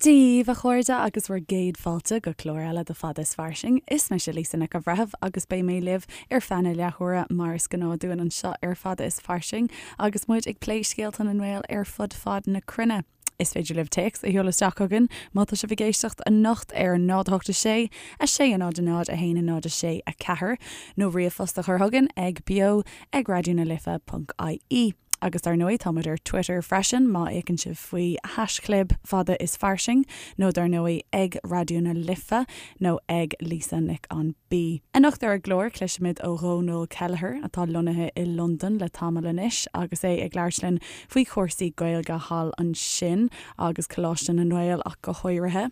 Dia daoibh, a chairde, agus bhur gcéad fáilte go clár eile de Fada is Fairsing. Is mise Lisa Nic an Bhreithimh agus beidh mé libh ar feadh na leathuaire mar is gnáth dúinn anseo ar Fada is Fairsing agus muid ag plé scéalta na nGael ar fud fad na cruinne. Is féidir libh téacs a sheoladh isteach chugainn má tá sibh ag éisteacht anocht ar 0 8 6 6 0 0 1 0 6 4 nó ríomhphost a chur chugainn ag beo ag raidió na life ponc ie. Agus dar ndóigh táimid ar Twitter freisin má fhéachann sibh faoi haischlib fada is fairsing nó dar ndóigh ag Raidió na Life nó ag Lisa Nic an B. Anocht ar an gclár cloisfimid ó Dhónal Kelleher atá lonnaithe i Londain le tamall anois agus é ag labhairt linn faoi chúrsaí Gaeilge thall ansin agus Coláiste na nGael ach go háirithe.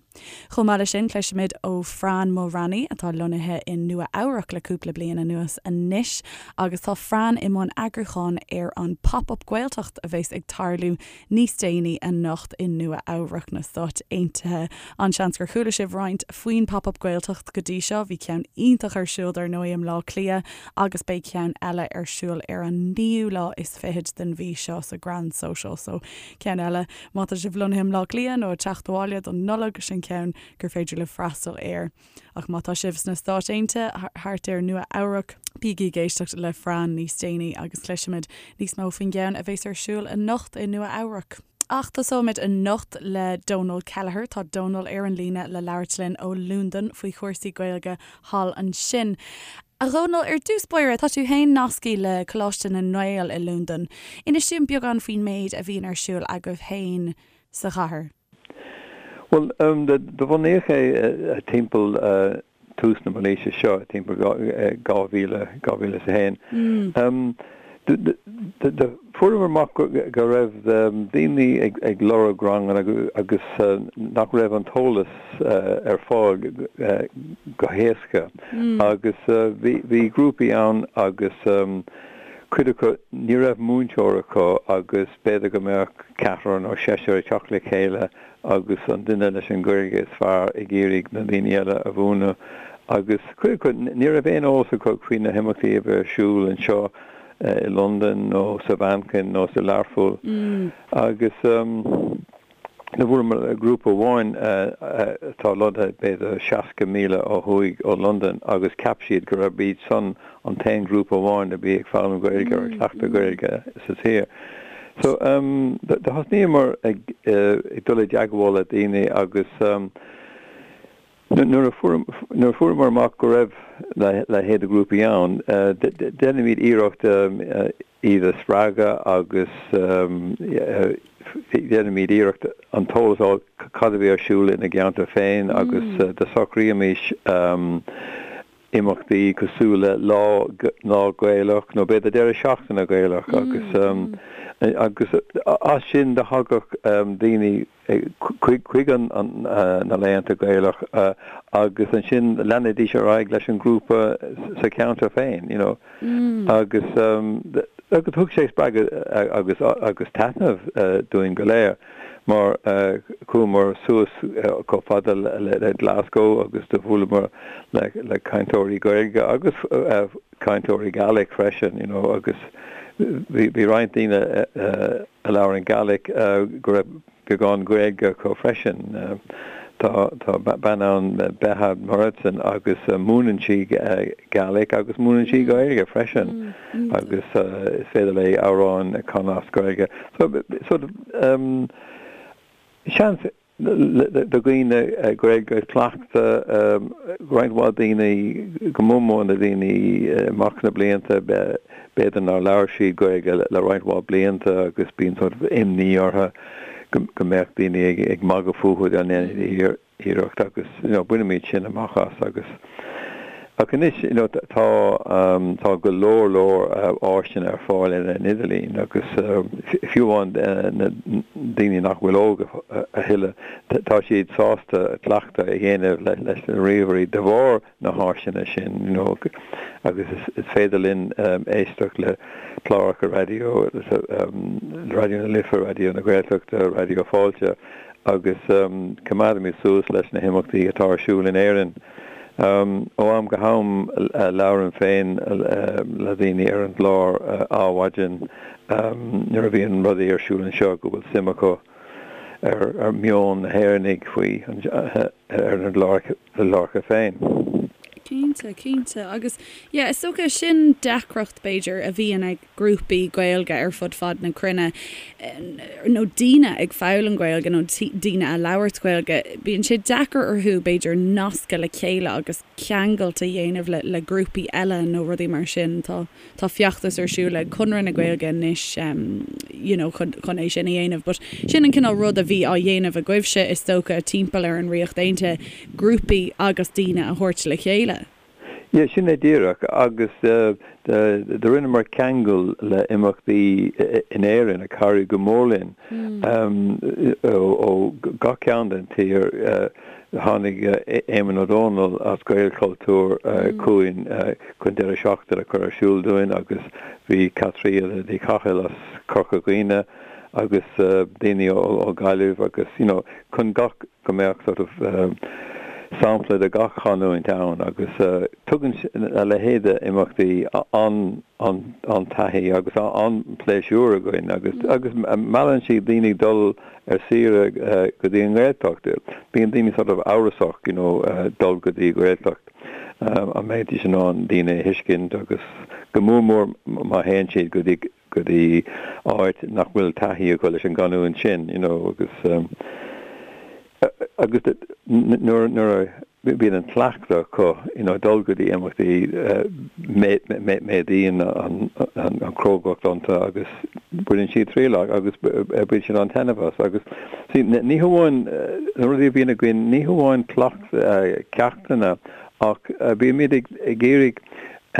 Chomh maith leis sin, cloisfimid ó Fran Mulraney atá lonnaithe i Nua Eabhrac le cúpla bliain anuas anois agus tá Fran i mbun eagrúcháin ar an Pop Up Gaeltacht a bheas ag tarlú níos déanaí anocht i Nua Eabhrac na Stáit Aontaithe. An-seans gur chuala sibh roinnt faoin Pop Up Gaeltacht go dtí seo, bhí ceann iontach ar siúl dar ndóigh i mBleá Cliath agus beidh ceann eile ar siúl ar an naoú lá is fichead den mhí seo sa Grand Social so ceann eile má tá sibh lonnaithe i mBleá Cliath nó ag teacht abhaile don Nollaig sin ceann gur féidir libh freastal air. Ach má tá sibh sna Stáit Aontaithe, thart ar Nua Eabhrac, bígí ag éisteacht le Fran níos déanaí agus cloisfimid níos mó faoin gceann a bheas ar siúl anocht i Nua Eabhrac. Ach tosóimid anocht le Dónal Kelleher. Tá Dónal ar an líne le labhairt linn ó Londain faoi chúrsaí Gaeilge thall ansin. A Dhónaill, ar dtús báire, tá tú féin nasctha le Coláiste na nGael i Londain. Inis dúinn beagán faoin méid a bhíonn ar siúl agaibh féin sa chathair. Bhuel, do bunaíodh é timpeall tús na mílaoise seo, timpeall 2000, 2001. Do fuaireamar amach go raibh daoine ag lorg ranganna agus nach raibh an t-eolas ar fáil go héasca agus bhí grúpaí ann agus cuid acu ní raibh múinteoir acu agus b'fhéidir go mbeadh ceathrar nó seisear ag teacht le chéile agus an duine leis an Ghaeilge is fearr ag iarraidh na daoine eile a mhúineadh agus cuid acu ní raibh aon eolas acu faoi na himeachtaí a bhí ar siúl anseo i Londain nó sa Mhanchain nó sa Learpholl agus do bhuaileamar le grúpa amháin atá lonnaithe b'fhéidir 60 míle ó thuaidh ó Londain agus cheap siad go raibh iad san an t-aon ghrúpa amháin a bhí ag foghlaim Gaeilge or ag cleachtadh Gaeilge sa tír. So do thosnaíomar ag dul i dteagmháil le daoine agus nuair a fuaireamar amach go raibh a leithéid de ghrúpaí ann, déanaimid iarracht iad a spreagadh agus déanaimid iarracht an t-eolas a fháil cad a bhí ar siúl ina gceantar féin agus do socraímis imeachtaí cosúil le Lá Lá Gaelach nó b'fhéidir deireadh seachtaine Gaelach agus agus as sin do thagadh daoine chuig an na laethanta Gaelach agus ansin leanaidís ar aghaidh leis an ghrúpa sa cheantar féin you know agus agus thug sé spreagadh agus agus taitneamh dúinn go léir. mar chuamar suas chomh fada le Glasgow agus do bhuaileamar le cainteoirí Gaeilge agus cainteoirí Gaelic freisin, you know, agus bhí roinnt daoine a labhrann Gaelic go raibh beagán Gaeilge acu freisin. Tá tá bean ann Betha Moradson agus múineann sí Gaelic agus múineann sí Gaeilge freisin agus is féidir léi amhráin a chanadh as Gaeilge. So sort of seans do dhaoine Gaeilge a chleachtadh, roinnt mhaith daoine, go mór mór na daoine amach na blianta, b'fhéidir nár labhair siad Gaeilge le roinnt mhaith blianta agus bíonn sort of imní orthu go mbeadh daoine ag magadh fúthu dá ndéanfaidís iarracht agus you know bainimid sin amach as agus ach anois you know tá tá go leor leor áiseanna ar fáil ar an idirlíon agus fiú amháin na daoine nach bhfuil óg a thuilleadh tá siad sásta cleachtadh a dhéanamh leis na ríomhairí de bharr na háiseanna sin you know agus is féidir linn éisteacht le cláracha raidió Raidió na Life, Raidió na Gaeltachta, Raidió Fáilte agus coimeádaimid suas leis na himeachtaí atá ar siúl in Éirinn. Ó am go ham labhraím féin le daoine ar an gclár Adhmhaidin nuair a bhíonn rudaí ar siúl anseo go bhfuil suim acu. ar meon na hÉireannaigh faoi ar na cláracha féin. Cinnte, cinnte. Agus yeah, is dócha sin deacracht b'fhéidir a bhíonn ag grúpaí Gaeilge ar fud fad na cruinne, nó daoine ag foghlaim Gaeilge nó daoine a labhairt Gaeilge, bíonn sé deacair orthu b'fhéidir nascadh le chéile agus ceangailt a dhéanamh le le grúpaí eile nó rudaí mar sin. Tá tá feachtas ar siúl ag Conradh na Gaeilge anois you know chun chun é sin a dhéanamh but sin an cineál rud a bhí á dhéanamh agaibhse is dócha timpeall ar an Ríocht Aontaithe, grúpaí agus daoine a thabhairt le chéile. Yeah, sin é díreach agus do rinneamar ceangal le imeachtaí in Éirinn a chabhraigh go mór linn ó gach cearn den tír. Tháinig Éamonn Ó Dónaill as Gaelchultúr chugainn chun deireadh seachtaine a chur ar siúl dúinn agus bhí Caitríona Ní Chathail as Corca Dhuibhne agus daoine ó Ghaillimh agus you know chun gach go mbeadh sort of sampla de gach chanúint ann agus tugann a leithéid de imeachtaí an-taithí agus an-pléisiúr againn agus agus meallann siad daoine dul ar saoire go dtí an nGaeltacht. Bíonn daoine sort of amhrasach you know dul go dtí Gaeltacht an mbeidís in ann daoine a thuiscint agus go mór mór má théann siad go dtí go dtí áit nach bhfuil taithí acu leis an gcanúint sin you know agus agus nuair nuair a bíonn an cleachtadh acu you know dul go dtí imeachtaí méadaíonn an chrógacht iontu agus baineann siad triail as agus bíonn siad an-taitneamh as agus see ní hamháin na rudaí a bhíonn againn ní hamháin ceachtanna ach bímid ag iarraidh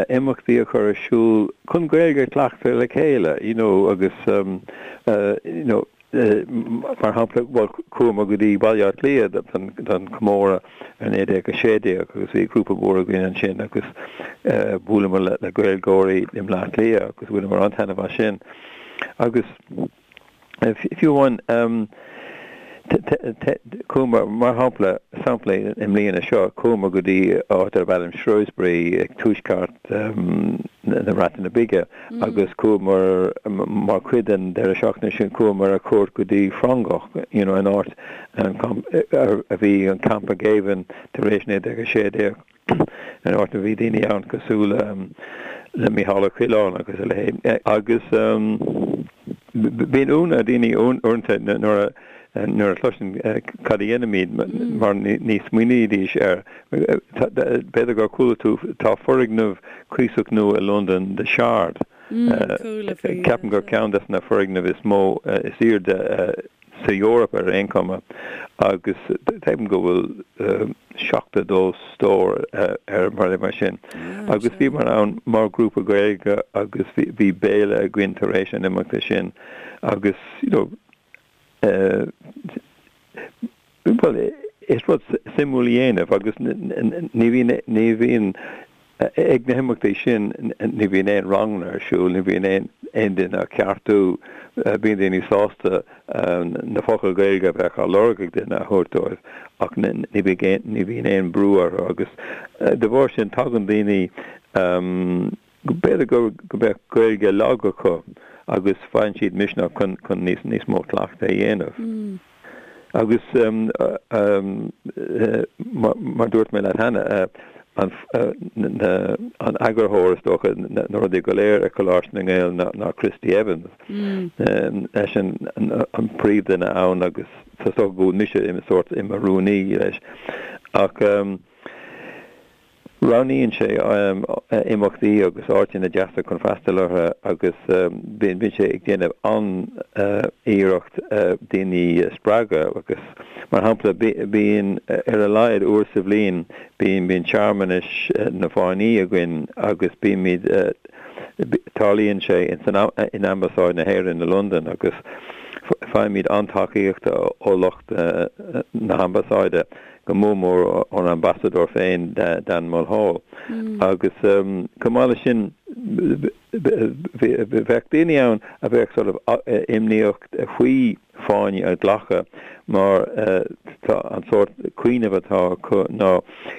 imeachtaí a chur ar siúl chun Gaeilge a chleachtadh le chéile you know agus you know Mar shampla, bhuel, chuamar go dtí Baile Átha Cliath don chomóradh ar 1916 agus bhí grúpa mór againn ansin agus bhuaileamar le Gaeilgeoirí i mBleá Cliath agus bhaineamar an-taitneamh as sin. Agus fiú amháin, chuamar, mar shampla, sampla i mbliana seo, chuamar go dtí áit darb ainm Shrewsbury ag tuaisceart na Breataine Bige agus chuamar mar chuid den deireadh seachtaine sin chuamar ar cuairt go dtí Frongoch you know an áit a bhí an campa géibhinn tar éis 1916 an áit a bhí daoine ann cosúil le Mícheál Ó Coileáin agus a leithéid agus bíonn ionadh ar daoine uaireanta nuair a nuair a chloiseann cad a dhéanaimid mar ní smaoinídís air. B'fhéidir gur chuala tú, tá foirgneamh cuíosach nua i Londain, The Shard. Ceapaim gur ceann des na foirgnimh is mó, is airde sa Eoraip ar aon chuma agus ceapaim go bhfuil 72 stór air mar mar sin. Agus bhíomar ann mar ghrúpa Gaeilge agus bhí béile againn tar éis an imeachta sin agus you know, Bhuel, is rud suimiúil a dhéanamh agus ní bhíonn, ní bhíonn, ag na himeachtaí sin, ní bhíonn aon ranganna ar siúl, ní bhíonn aon, aon duine á ceartú, bíonn daoine sásta na focail Ghaeilge a bheadh á lorg ag duine a thabhairt dóibh ach ní bhíonn, ní bhíonn aon brú orthu agus de bharr sin tagann daoine, B'fhéidir go mbeadh Gaeilge lag acu agus faigheann siad misneach chun níos mó cleachtaidh a dhéanamh. Agus mar dúirt mé leat cheana, an eagarthóir is dócha na rudaí go léir ag Coláiste na nGael ná Christy Evans. Eisean an príomhdhuine ann agus is dócha go bhfuil mise i sórt i mo rúnaí leis. Ach Roghnaíonn sé imeachtaí agus áiteanna deasa chun freastal orthu agus bíonn sé ag déanamh an-iarracht daoine a spreagadh agus, mar shampla, bíonn ar a laghad uair sa bhliain bíonn bíonn searmanais na bhFáinní againn agus bímid tarlaíonn sé in Ambasáid na hÉireann i Londain agus faighimid an-tacaíocht ó lucht na hAmbasáide. go mór mór ón ambasadóir féin, Dan Mulhall. Agus chomh maith leis sin, bheadh daoine ann a bheadh sort of imníoch faoi fáinne a ghlacadh mar tá an sórt cuimhneamh atá acu ná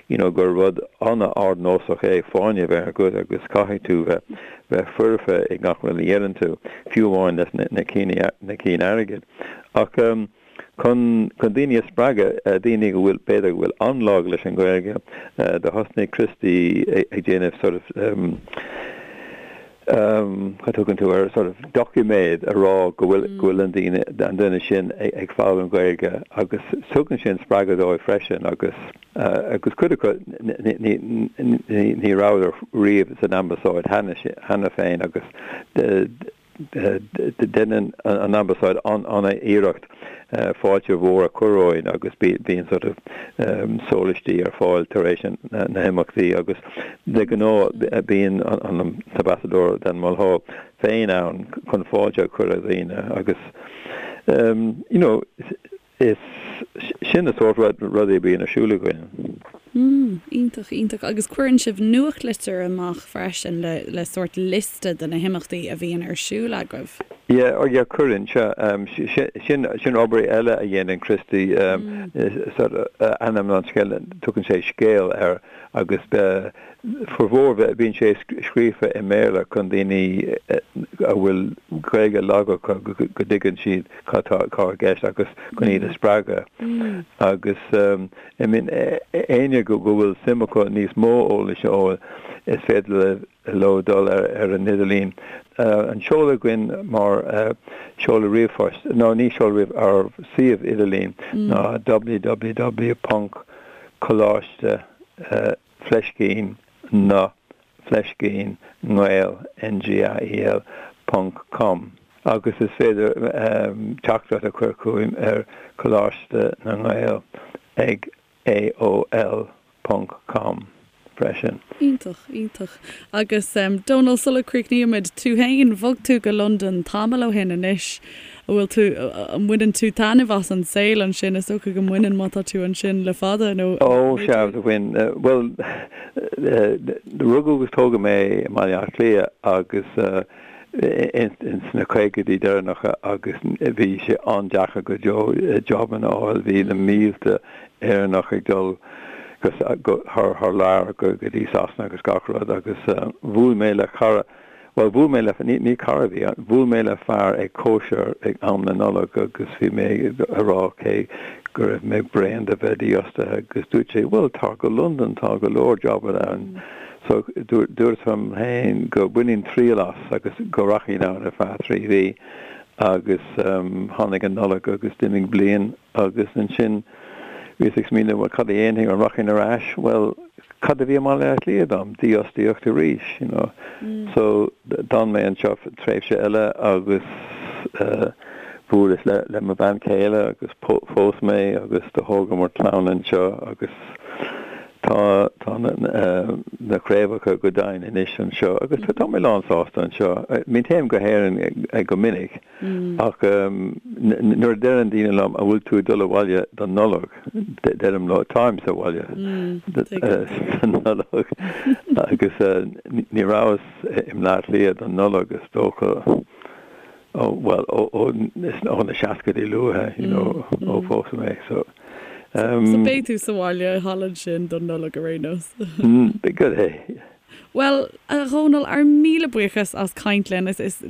you know gur rud an-ardnósach é fáinne a bheith agat agus caithfidh tú bheith bheith foirfe i ngach rud a dhéanann tú, fiú amháin leis na cinn airgid. Ach. Chun chun daoine a spreagadh, daoine go bhfuil, b'fhéidir go bhfuil an-lag leis an Ghaeilge, do thosnaigh Christy ag déanamh sort of cad tugann tú air, sort of doiciméad a rá go bhfuil go bhfuil an daoine an duine sin ag foghlaim Gaeilge agus tugann sin spreagadh dóibh freisin agus agus cuid acu ní ní ní rabhadar riamh san ambasáid cheana féin agus Déanann an Ambasáid an-iarracht fáilte mhór a chur romhainn agus bíonn sort of sólaistí ar fáil tar éis na himeachtaí agus de ghnáth bíonn an tAmbasadóir Dan Mulhall féin ann chun fáilte a chur ar dhaoine agus you know Is sin na sórt rudaí a bhíonn ar siúl againn. Mm, iontach, iontach. Agus cuireann sibh nuachtlitir amach freisin le, le sórt liosta de na himeachtaí a bhíonn ar siúl agaibh. Yeah, oh yeah, cuireann, sea. Sin, sin obair eile a dhéanann Christy, sort ainm an scéil, tugann sé scéal air agus formhór bíonn sé scríofa i mBéarla chun daoine a bhfuil Gaeilge lag acu go dtuigeann siad cad tá i gceist agus chun iad a spreagadh. Agus I mean éinne go bhfuil suim acu níos mó eolais a fháil is féidir leo dul ar an idirlíon. An seoladh againn mar seoladh ríomhphoist, nó ní seoladh ríomh, ár suíomh idirlín ná www ponc coláiste fleiscín na fleiscín nGael, N-G-A-E-L, ponc com agus is féidir teachtaireacht a chur chugainn ar Coláiste na nGael ag AOL ponc com freisin. Iontach, iontach. Agus Dónal, sula gcríochnaímid, tú féin, bhog tú go Londain tamall ó shin anois. An bhfuil tú, an mbaineann tú taitneamh as an saol ansin? Is dócha go mbaineann má tá tú ansin le fada, nó Ó, sea, do bhain. Bhuel, rugadh agus tógadh mé i mBaile Átha Cliath agus ins na caogaidí deireanacha agus bhí sé an-deacair go deo jobanna a fháil. Bhí na mílte Éireannach ag dul go thar lear go dtí Sasana agus gach rud agus bhuail mé le cara, Bhuel, bhuail mé le, ní, ní cara a bhí ann, bhuail mé le fear ag cóisir ag am na Nollag agus bhí mé a rá cé go raibh mé bréan de bheith dífhostaithe agus dúirt sé, bhuel, tar go Londain, tá go leor jobanna ann. So, dúirt liom féin go mbainfinn triail as agus go rachainn ann ar feadh 3 mhí agus tháinig an Nollaig agus d'imigh bliain agus ansin bhíos ag smaoineamh, bhuel, cad a dhéanfainn, an rachainn ar ais? Bhuel, cad a bhí i mBaile Átha Cliath dom? Dífhostaíocht arís, you know. So, d'fhan mé anseo tréimhse eile agus bhuaileas le le mo bhean chéile agus phós mé agus do thógamar clann anseo agus tá tá na na craobhacha go deimhin anois anseo agus tá mé lán sásta anseo. I mean téim go hÉirinn go minic Ach nuair a deireann daoine liom an bhfuil tú ag dul abhaile don Nollaig, deirim leo táim sa bhaile don Nollaig agus ní rabhas i mBleá Cliath don Nollaig is dócha ó bhuel ó ó na seascaidí luatha you know ó phós mé so. So beidh tú sa bhaile thall ansin don Nollaig ar aon nós. Go é. Bhuel, a Dhónaill, ár míle buíochas as caint linn. Is, is,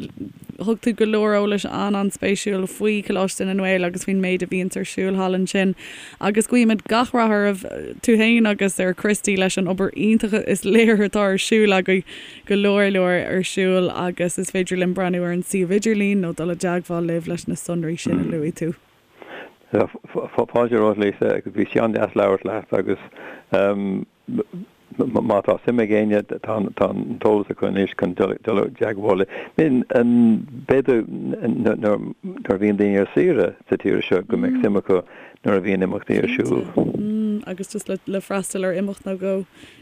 thug tú go leor eolais an-an-spéisiúil faoi Choláiste na nGael agus faoin méid a bhíonns ar siúl thall ansin. Agus guímid gach rath oraibh, tú fhéin agus ar Christy leis an obair iontach is léir atá ar siúl agaibh, go leor leor ar siúl agus is féidir linn breathnú ar an suíomh idirlín nó dul i dteagmháil libh leis na sonraí sin a luaigh tú. Fáilte romhat, Lisa, agus bhí sé an-deas labhairt leat agus Má tá suim ag éinne, tá an t-eolas acu anois chun dul i dteagmháil linn. B'fhéidir nuair a bhíonn daoine ar saoire sa tír seo go mbeadh suim acu nuair a bhíonn imeachtaí ar siúl. Agus just le freastal ar imeacht nó dhó,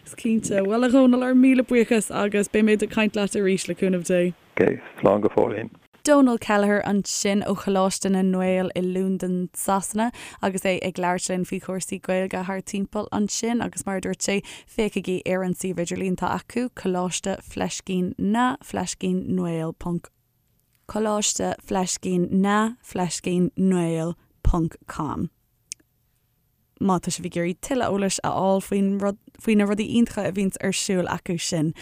is cinnte. Bhuel, a Dhónaill, ár míle buíochas agus beimid ag caint leat arís, le cúnamh Dé. Ok, slán go fóillín. Dónal Kelleher ansin ó Choláiste na nGael i Londain, Sasana agus é ag labhairt linn faoi chúrsaí Gaeilge thar timpeall ansin agus mar a dúirt sé, féachaigí ar an suíomh idirlín atá acu, Coláiste Fleiscín na Fleiscín nGael ponc Coláiste Fleiscín na Fleiscín nGael ponc com. má tá sibh ag iarraidh tuilleadh eolais a fháil faoin rud, faoi na rudaí iontacha a bhíonns ar siúl acu sin.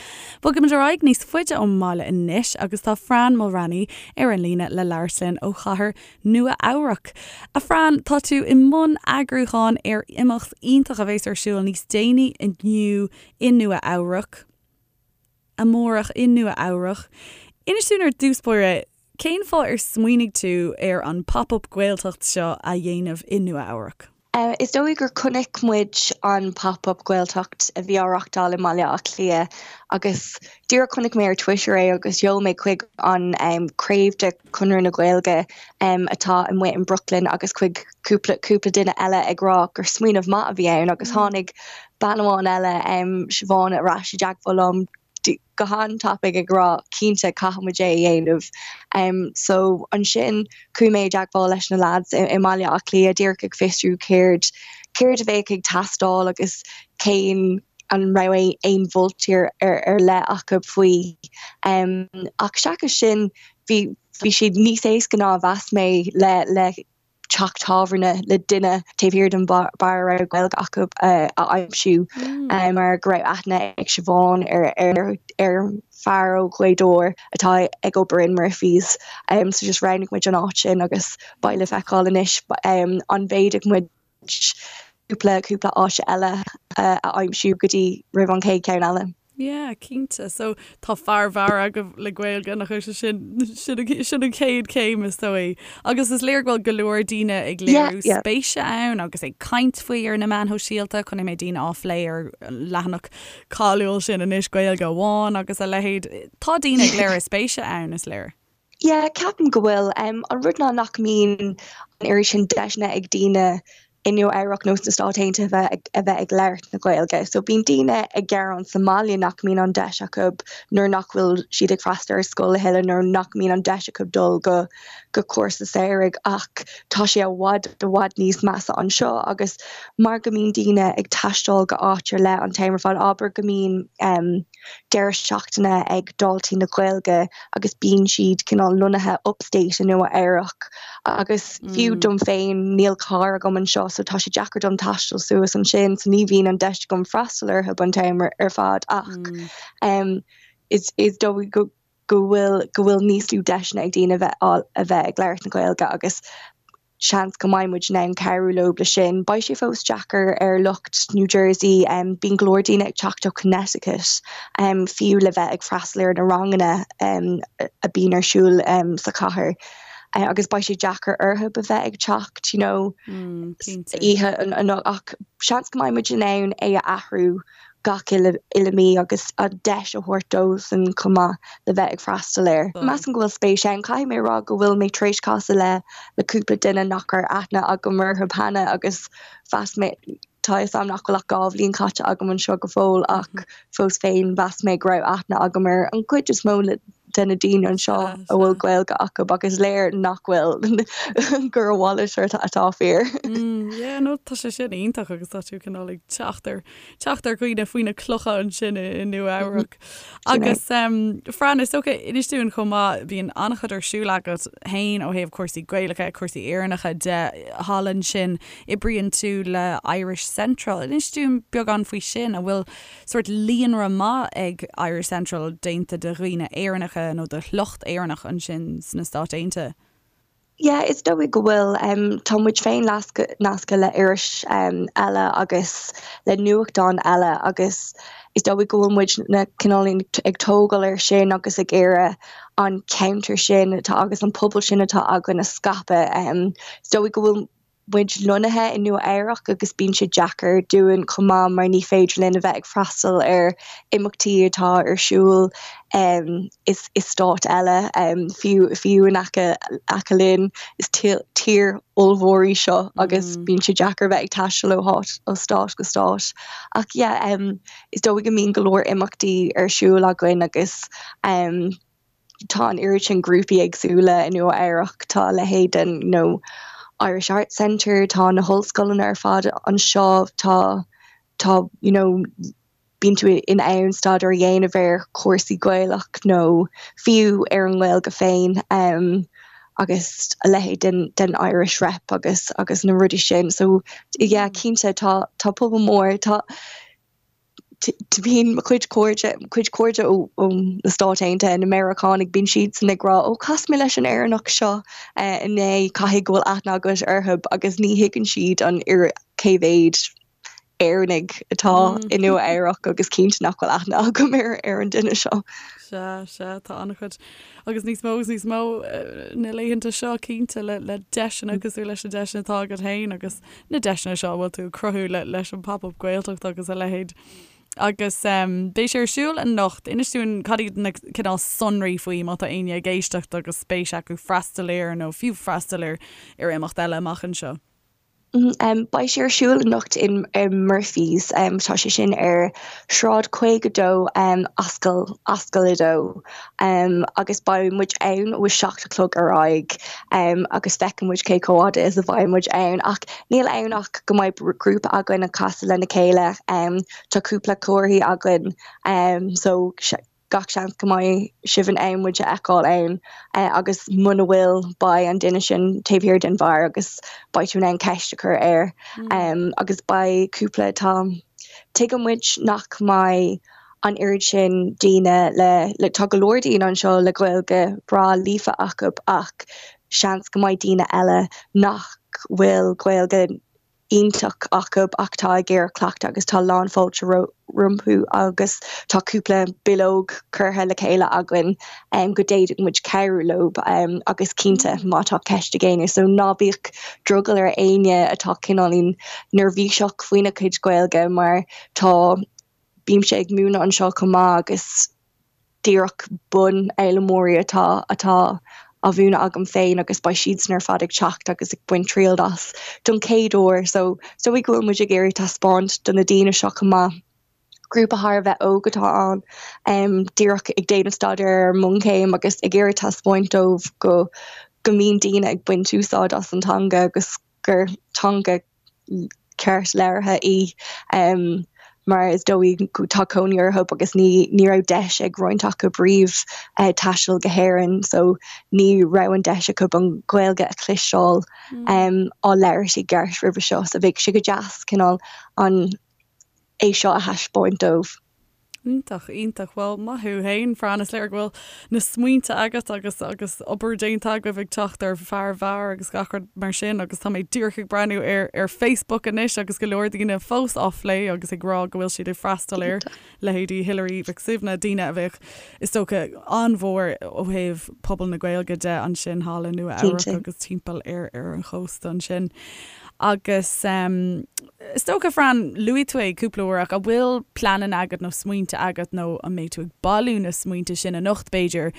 Bogaimid ar aghaidh níos faide ón mbaile anois agus tá Fran Mulraney ar an líne le labhairt linn ó chathair Nua Eabhrac. A Fran, tá tú i mbun eagrúcháin ar imeacht iontach a bheas ar siúl níos déanaí inniu i Nua Eabhrac. Amárach i Nua Eabhrac. Inis dúinn ar dtús báire, cén fáth ar smaoinigh tú ar an Pop Up Gaeltacht seo a dhéanamh i Nua Eabhrac? Is dóigh gur chonaic muid an Pop Up Gaeltacht a bhí á reachtáil i mBaile Átha Cliath agus díreach chonaic mé ar Twitter é agus sheol mé chuig an craobh de Chonradh na Gaeilge atá amuigh in Brooklyn agus chuig cúpla cúpla duine eile ag rá gur smaoineamh maith a bhí ann agus tháinig bean amháin eile, Siobhán, ar ais i dteagmháil liom go han-tapaidh ag rá cinnte caithfidh muid é a dhéanamh. So ansin chuaigh mé i dteagmháil leis na lads i mBaile Átha Cliath díreach ag fiosrú céard céard a bheadh ag teastáil agus cén an raibh aon mholtaí ar ar leith acu faoi. Ach seachas sin bhí bhí sé níos éasca ná a mheas mé le le teach tábhairne le duine taobh thiar den bheár a raibh Gaeilge acu a aimsiú mar go raibh aithne ag Siobhán ar ar fear ó Ghaoth Dobhair atá ag obair in Murphy's. So just roghnaigh muid an áit sin agus beidh le feiceáil anois an bhféadfadh muid cúpla cúpla áit eile a aimsiú go dtí roimh an chéad cheann eile. Yeah, cinnte. So tá fear beáir agaibh le Gaeilge, nach bhfuil sé sin, sin, sin an chéad chéim is dóigh. Agus is léir go bhfuil go leor daoine ag léiriú spéise ann agus ag caint faoi ar na meáin shóisialta. Chonaic mé daoine á phlé ar an leathanach cáiliúil sin anois, Gaeilge Amháin agus a leithéid. Tá daoine ag léiriú spéise ann, is léir. Yeah, ceapaim go bhfuil. An rud ná nach mbíonn an oiread sin deiseanna ag daoine i Nua Eabhrac nó sna Stáit Aontaithe a bheith a bheith ag labhairt na Gaeilge. So bíonn daoine ag gearán sa mbaile nach mbíonn an deis acu nuair nach bhfuil siad ag freastal ar scoil a thuilleadh nó nach mbíonn an deis acu dul go go cúrsa samhraidh ach tá sé i bhfad i bhfad níos measa anseo agus mar go mbíonn daoine ag taisteal go áit ar leith an t-am ar fad, abair go mbíonn deireadh seachtaine ag Daltaí na Gaeilge agus bíonn siad cineál lonnaithe upstate i Nua Eabhrac agus fiú dom féin níl carr agam anseo so tá sé deacair dom taisteal suas ansin so ní bhíonn an deis agam freastal orthu an t-am ar fad ach is is dóigh go go bhfuil go bhfuil níos lú deiseanna ag daoine a bheith a bheith ag labhairt na Gaeilge agus seans go mbeidh muid in ann cabhrú leo le sin. Beidh sé fós deacair ar lucht New Jersey, bíonn go leor daoine ag teacht ó Connecticut fiú le bheith ag freastal ar na ranganna a bíonn ar siúl sa chathair agus beidh sé deacair orthu a bheith ag teacht you know oíche ach seans go mbeidh muid in ann é a athrú gach uile mí agus an deis a thabhairt dósan chomh maith le bheith ag freastal air. Measaim go bhfuil spéis ann. Caithfidh mé a rá go bhfuil mé tar éis casadh le le cúpla duine nach raibh aithne agam orthu cheana agus mheas mé, tá a fhios agam nach bhfuil ach 2 bhliain caite agam anseo go fóill ach fós féin mheas mé go raibh aithne agam ar an gcuid is mó de na daoine anseo a bhfuil Gaeilge acu ach is léir nach bhfuil, gur a mhalairt atá fíor. Yeah, no, tá sé sin iontach agus tá tú cineál ag teacht ar, teacht ar dhaoine faoi na clocha ansin i, i Nua Eabhrac. Agus Fran, is dócha, inis dúinn chomh maith, bíonn an-chuid ar siúl agat féin ó thaobh cúrsaí Gaelacha, cúrsaí Éireannacha de thall ansin. Oibríonn tú le Irish Central. Inis dúinn beagán faoi sin, an bhfuil sórt líonra maith ag Irish Central déanta de dhaoine Éireannacha nó de shliocht Éireannach ansin sna Stáit Aontaithe? Yeah, is dóigh go bhfuil. Tá muid féin nasctha le iris eile agus le nuachtán eile agus is dóigh go bhfuil muid na cineál ag tógáil air sin agus ag iarraidh an ceantar sin atá agus an pobal sin atá againn a scaipeadh. Is dóigh go bhfuil muid lonnaithe i Nua Eabhrac agus bíonn sé deacair dúinn chomh maith mar ní féidir linn a bheith ag freastal ar imeachtaí atá ar siúl i stáit eile, fiú fiú in aice aice linn. Is tír ollmhór í seo agus bíonn sé deacair a bheith ag taisteal ó háit ó stát go stát. Ach yeah, is dóigh go mbíonn go leor imeachtaí ar siúl againn agus tá an oiread sin grúpaí éagsúla i Nua Eabhrac, tá a leithéid den you know Irish Arts Centre, tá na hollscoileanna ar fad anseo, tá tá you know bíonn tú in ann staidéar a dhéanamh ar chúrsaí Gaelach nó fiú ar an nGaeilge féin. agus a leithéid den den Irish Rep agus agus na rudaí sin so yeah cinnte tá tá pobal mór tá bíonn mo chuid cairde cuid cairde ó ó na Stáit Aontaithe na Meiriceánaigh bíonn siadsan ag rá ó chas mé leis an Éireannach seo inné caithfidh go bhfuil aithne agat orthu agus ní thuigeann siad an cé mhéad Éireannaigh atá i Nua Eabhrac agus cinnte nach bhfuil aithne agam ar ar an duine seo. Sea, sea, tá an-chuid agus níos mó agus níos mó na laethanta seo cinnte le le deiseanna cosúil leis na deiseanna atá agat féin agus na deiseanna seo a bhfuil tú ag cruthú le leis an Pop Up Gaeltacht agus a leithéid. Agus beidh sé ar siúl anocht. Inis dúinn cad iad na cineál sonraí faoi má tá éinne ag éisteacht agus spéis acu freastal air nó fiú freastal ar ar imeacht eile amach anseo. Beidh sé ar siúl anocht in Murphy's. Tá sé sin ar Shráid 52, Ascaill, Ascaill 2, agus beidh muid ann ó 7 a chlog ar aghaidh agus feicfidh muid cé chomh fhada is a bheidh muid ann. Ach níl ann ach go mbeidh grúpa againn ag casadh lena chéile. Tá cúpla comharthaí againn so gach seans go mbeidh sibh in ann muid a fheiceáil ann agus muna bhfuil beidh an duine sin taobh thiar den bheár agus beidh tú in ann ceist a chur air agus beidh cúpla tá tuigeann muid nach mbeidh an oiread sin daoine le le tá go leor daoine anseo le Gaeilge breá líofa acu ach seans go mbeidh daoine eile nach bhfuil Gaeilge iontach acu ach tá ag iarraidh cleachtadh agus tá lán fáilte rompu agus tá cúpla bileog curtha le chéile againn go d'fhéadfadh muid cabhrú leo agus cinnte má tá ceist ag éinne so ná bíodh drogall ar éinne atá cineáilín neirbhíseach faoina cuid Gaeilge mar tá bímse ag múineadh anseo chomh maith agus díreach bunfhoghlaimeoirí atá atá á mhúineadh agam féin agus beidh siadsan ar fad ag teacht agus ag baint triail as don chéad uair so is dóigh go bhfuil muid ag iarraidh taispeáint do na daoine seo chomh maith. Grúpa thar a bheith óg atá ann, díreach ag déanamh staidéar ar an mbunchéim agus ag iarraidh taispeáint dóibh go go mbíonn daoine ag baint úsáid as an teanga agus gur teanga ceart labhartha í mar is dóigh tá cónaí orthu agus ní ní raibh deis ag roinnt acu riamh taisteal go hÉirinn so ní raibh an deis acu an Ghaeilge a chloisteáil á labhairt i gceart roimhe seo so bheadh sé go deas cineál an é seo a thaispeáint dóibh. Iontach, iontach. Bhuel, maith thú fhéin, Fran. Is léir go bhfuil na smaointe agat agus agus obair déanta agaibh ag teacht ar fear beáir agus gach rud mar sin agus tá mé díreach ag breathnú ar ar Facebook anois agus go leor daoine fós á phlé agus ag rá go bhfuil siad ag freastal air, leithéidí Hilary Mhic Suibhne, daoine a bheadh, is dócha, an-mhór ó thaobh pobal na Gaeilge de ansin thall i Nua Eabhrac agus timpeall ar ar an chósta ansin. Agus is dócha, Fran, luaigh tú é cúpla uair ach an bhfuil pleananna agat nó smaointe agat nó an mbeidh tú ag bailiú na smaointe sin anocht, b'fhéidir,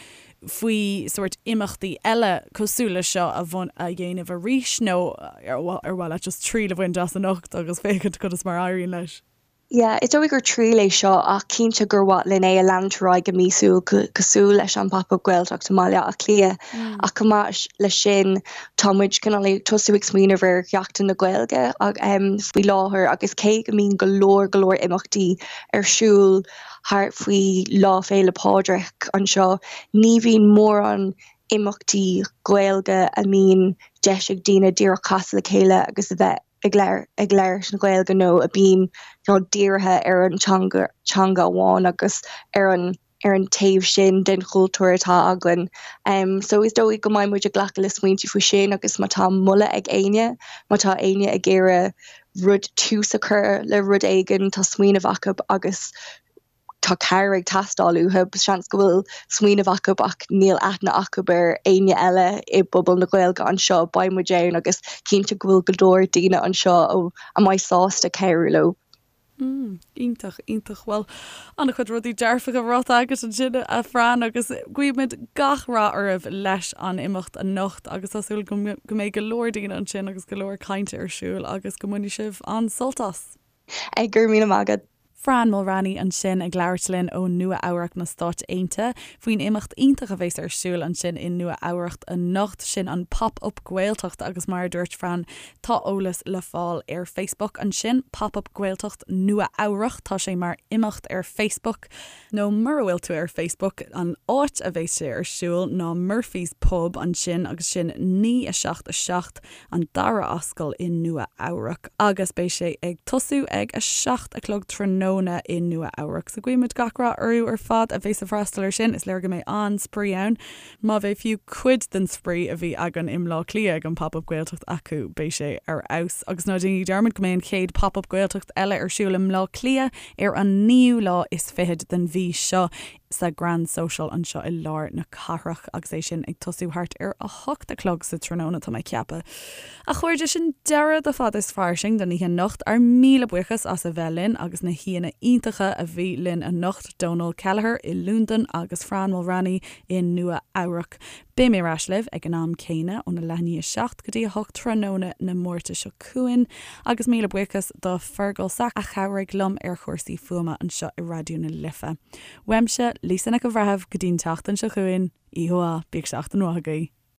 faoi sórt imeachtaí eile cosúil leis seo a a dhéanamh arís nó ar mhaith leat just triail a bhaint as anocht agus féachaint conas mar a éiríonn leis? Yeah, is dóigh gur triail é seo ach cinnte gur mhaith linn é a leanúint ar aghaidh go míosúil cosúil leis an Pop Up Gaeltacht i mBaile Átha Cliath. Ach chomh maith leis sin tá muid cineál ag tosú ag smaoineamh ar Sheachtain na Gaeilge faoi láthair agus cé go mbíonn go leor go leor imeachtaí ar siúl thart faoi Lá Féile Pádraig anseo, ní bhíonn mórán imeachtaí Gaeilge a mbíonn deis ag daoine díreach casadh le chéile agus a bheith ag ag labhairt na Gaeilge nó a bíonn you know dírithe ar an teanga teanga amháin agus ar an ar an taobh sin den chultúr atá againn. Um, so is dóigh go mbeidh muid ag glacadh le smaointe faoi sin agus má tá moladh ag éinne, má tá éinne ag iarraidh rud tús a chur le rud éigin, tá smaoineamh acu agus tá cabhair ag teastáil uathu. Seans go bhfuil smaoineamh acu ach níl aithne acu ar éinne eile i bpobal na Gaeilge anseo. Beidh muid ann agus cinnte go bhfuil go leor daoine anseo a mbeidh sásta cabhrú leo. Mm, iontach, iontach. Bhuel, an-chuid rudaí dearfacha ráite agat ansin, a Fran, agus guímid gach rath oraibh leis an imeacht anocht agus tá súil go mbeidh go leor daoine ansin agus go leor cainte ar siúl agus go mbainfidh sibh an-sult as. Go raibh míle maith agat. Fran Mulraney ansin ag labhairt linn ó Nua Eabhrac na Stáit Aontaithe faoin imeacht iontach a bheas ar siúl ansin i Nua Eabhrac anocht, sin an Pop Up Gaeltacht agus mar a dúirt Fran tá eolas le fáil ar Facebook ansin, Pop Up Gaeltacht Nua Eabhrac, tá sé mar imeacht ar Facebook nó mura bhfuil tú ar Facebook an áit a bheas sé ar siúl ná Murphy's Pub ansin agus sin 9 7 7 an Dara Ascaill i Nua Eabhrac agus beidh sé ag tosú ag 7 a chlog tráthnóna i Nua Eabhrac. So guímid gach rath orthu ar fad a bheas ag freastal ar sin. Is léir go mbeidh an-spraoi ann. Má bheidh fiú cuid den spraoi a bhí againn i mBleá Cliath ag an Pop Up Gaeltacht acu, beidh sé ar fheabhas. Agus ná déanaigí dearmad go mbeidh an chéad Pop Up Gaeltacht eile ar siúl i mBleá Cliath ar an naoú lá is fichead den mhí seo. sa Grand Social anseo i lár na cathrach agus é sin ag tosú thart ar 8 a chlog sa tráthnóna, tá mé ag ceapadh. A chairde, sin deireadh de Fada is Fairsing don oíche anocht. Ár míle buíochas as a bheith linn agus na haíonna iontacha a bhí linn anocht, Dónal Kelleher i Londain agus Fran Mulraney i Nua Eabhrac. Beidh mé ar ais libh ag an am céanna óna leath i ndiaidh 7 go dtí 8 tráthnóna na Máirte seo chugainn agus míle buíochas do Fergal Sack a chabhraigh liom ar chúrsaí fuaime anseo i Raidió na Life. Uaimse, Lisa Nic an Bhreithimh, go dtí an tseachtain seo chugainn, oíche mhaith, bíodh seachtain mhaith agaibh.